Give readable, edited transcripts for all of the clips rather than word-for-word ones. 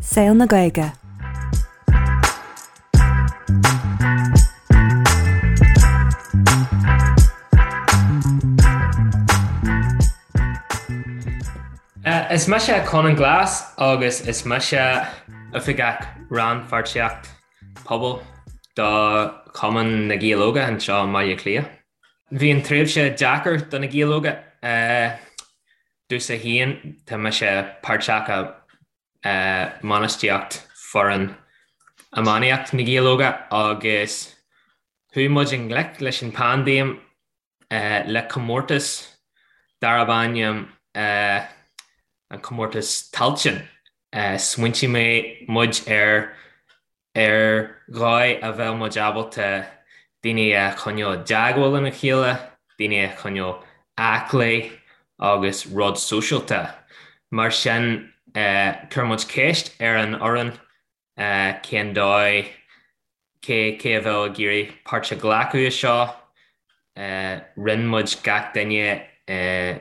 Saol na Gaeilge. Is mise Conán Glass agus is mise Oifigeach Rannpháirtíocht Pobail do Chumann na Gael Óga anseo i mBaile Átha Cliath. Bhí an tréimhse deacair do na Gaeil Óga. Domhsa féin, tá mise páirteach i mbainistíocht foireann iománaíocht na Gaeil Óga agus chuaigh muid i ngleic leis an bpaindéim le comórtas darb ainm an Comórtas Tailteann. Smaointigh muid ar ar dhóigh a bheadh muid ábalta daoine a choinneáil i dteagmháil lena chéile, daoine a choinneáil aclaí agus rud sóisialta. Mar sin, chuir muid ceist ar an fhoireann cén dóigh, cé cé a bheadh ag iarraidh páirt a ghlacadh i seo. Roinn muid gach duine i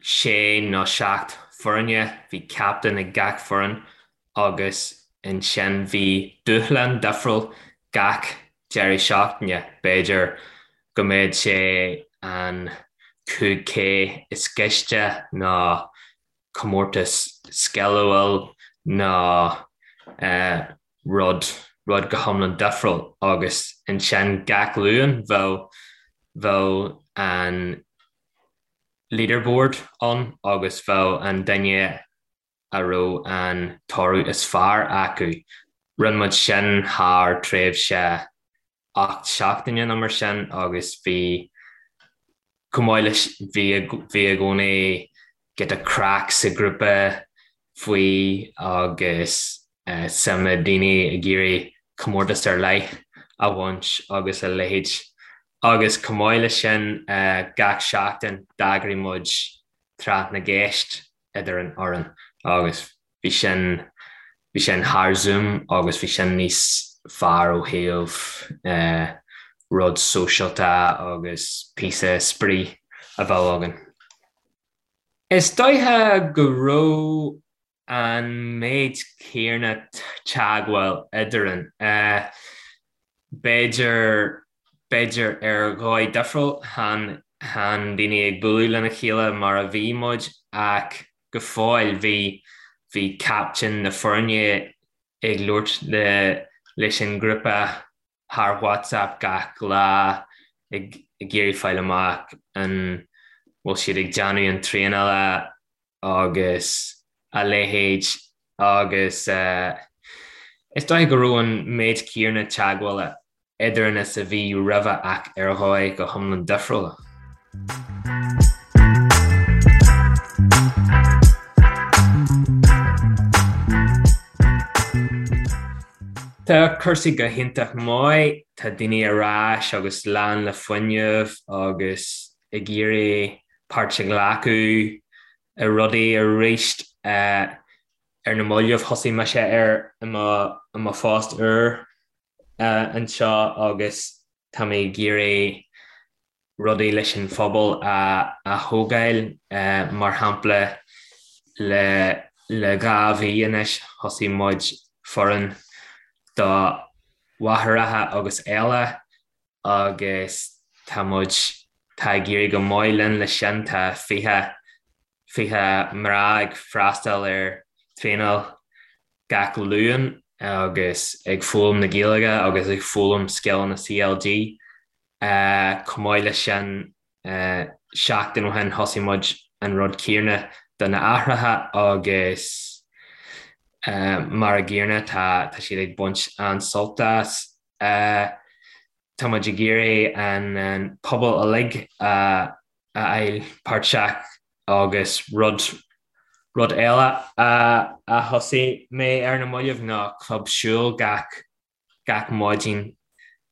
sé nó seacht foirne, bhí captaen ag gach foireann agus ansin bhí dúshlán difriúil gach deireadh seachtaine, b'fhéidir go mbeadh sé an 5K is gaiste nó comórtas scileáil nó rud, rud go hiomlán difriúil agus ansin gach Luan bheadh, bheadh an leaderboard ann agus bheadh an duine a raibh an toradh is fearr acu. Rinne muid sin thar tréimhse 8 seachtaine nó mar sin agus bhí, chomh maith leis, bhí bhí i gcónaí giota craic sa ghrúpa faoi agus suim ag daoine ag iarraidh comórtas ar leith a bhaint agus a leithéid. Agus chomh maith leis sin, gach seachtain d'eagraigh muid tráth na gceist idir an fhoireann agus bhí sin, bhí sin thar Zoom agus bhí sin níos fearr ó thaobh rud sóisialta agus píosa spraoi a bheadh againn. Is dóiche go raibh an méid céanna teagmháil eadrainn. B'fhéidir, b'fhéidir ar dhóigh difriúil, chan, chan daoine ag bualadh lena chéile mar a bhí muid ach go fóill bhí, bhí captaen na foirne ag labhairt le, leis an ngrúpa thar WhatsApp gach lá ag iarraidh fáil amach an bhfuil siad ag déanamh an traenála agus a leithéid agus is dóiche go raibh an méid céanna teagmhála eadrainn is a bhí roimhe ach ar dhóigh go hiomlán difriúil. Tá cúrsaí go hiontach maith, tá daoine ar ais agus lán le fuinneamh agus ag iarraidh páirt a ghlacadh i rudaí arís. Ar na mallaibh thosaigh mise ar i mo phost úr anseo agus tá mé ag iarraidh rudaí leis an phobal a thógáil. Mar shampla, le le 2 mhí anois thosaigh muid foireann do mháithreacha agus eile agus tá muid, tá ag éirí go maith linn leis sin, tá 20, 20 mná ag freastal ar traenáil gach Luan agus ag foghlaim na Gaeilge agus ag foghlaim scileanna CLG. Chomh maith leis sin, seachtain ó shin thosaigh muid an rud céanna do na haithreacha agus mar a gcéanna tá siad ag baint an-sult as. Tá muid ag iarraidh an pobal uilig a fháil páirteach agus rud rud eile a thosaigh mé ar na mallaibh ná club siúil gach gach maidin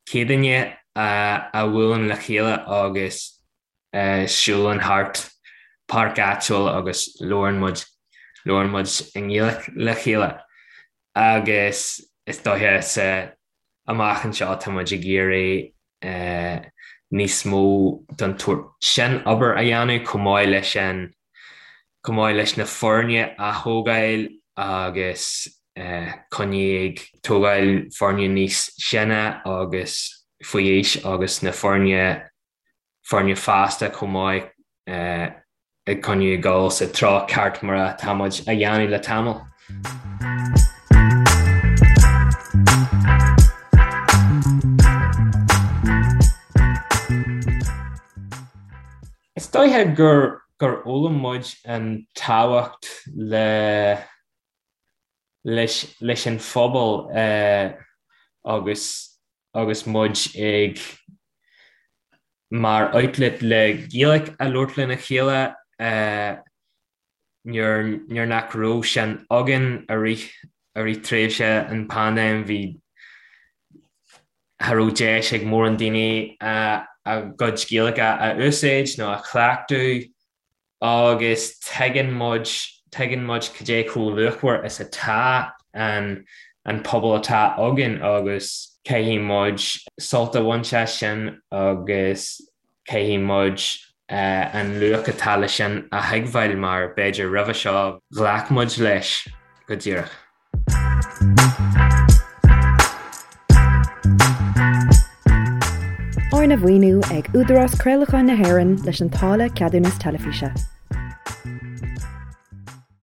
Céadaoine a bhuaileann le chéile agus siúlann thart páirc áitiúil agus labhrann muid labhrann muid i nGaeilge le chéile agus is dóiche sa amach anseo tá muid ag iarraidh níos mó den tsórt sin obair a dhéanamh chomh maith leis an chomh maith leis na foirne a thógáil agus. coinneáil ag tógáil foirne níos sine agus faoi aois agus na foirne foirne fásta chomh maith ag coinneáil ag dul sa treo ceart mar atá muid a dhéanamh le tamall. Is dóiche gur gur fhoghlaim muid an tábhacht le leis leis an phobal agus agus muid ag mar outlet le Gaeilge a labhairt lena chéile nuair nuair nach raibh sin againn i rith i rith tréimhse an paindéim bhí cha raibh deis ag mórán daoine a gcuid Gaeilge a úsáid nó a chleachtadh agus tuigeann muid, tuigeann muid cad é chomh luachmhar is atá an an pobal atá againn agus caithfidh muid sult a bhaint as sin agus caithfidh muid an luach atá leis sin a thuigbheáil mar b'fhéidir roimhe seo ghlac muid leis go díreach. Arna mhaoiniú ag Údarás Craolacháin na hÉireann leis an táille Ceadúnas Teilifíse.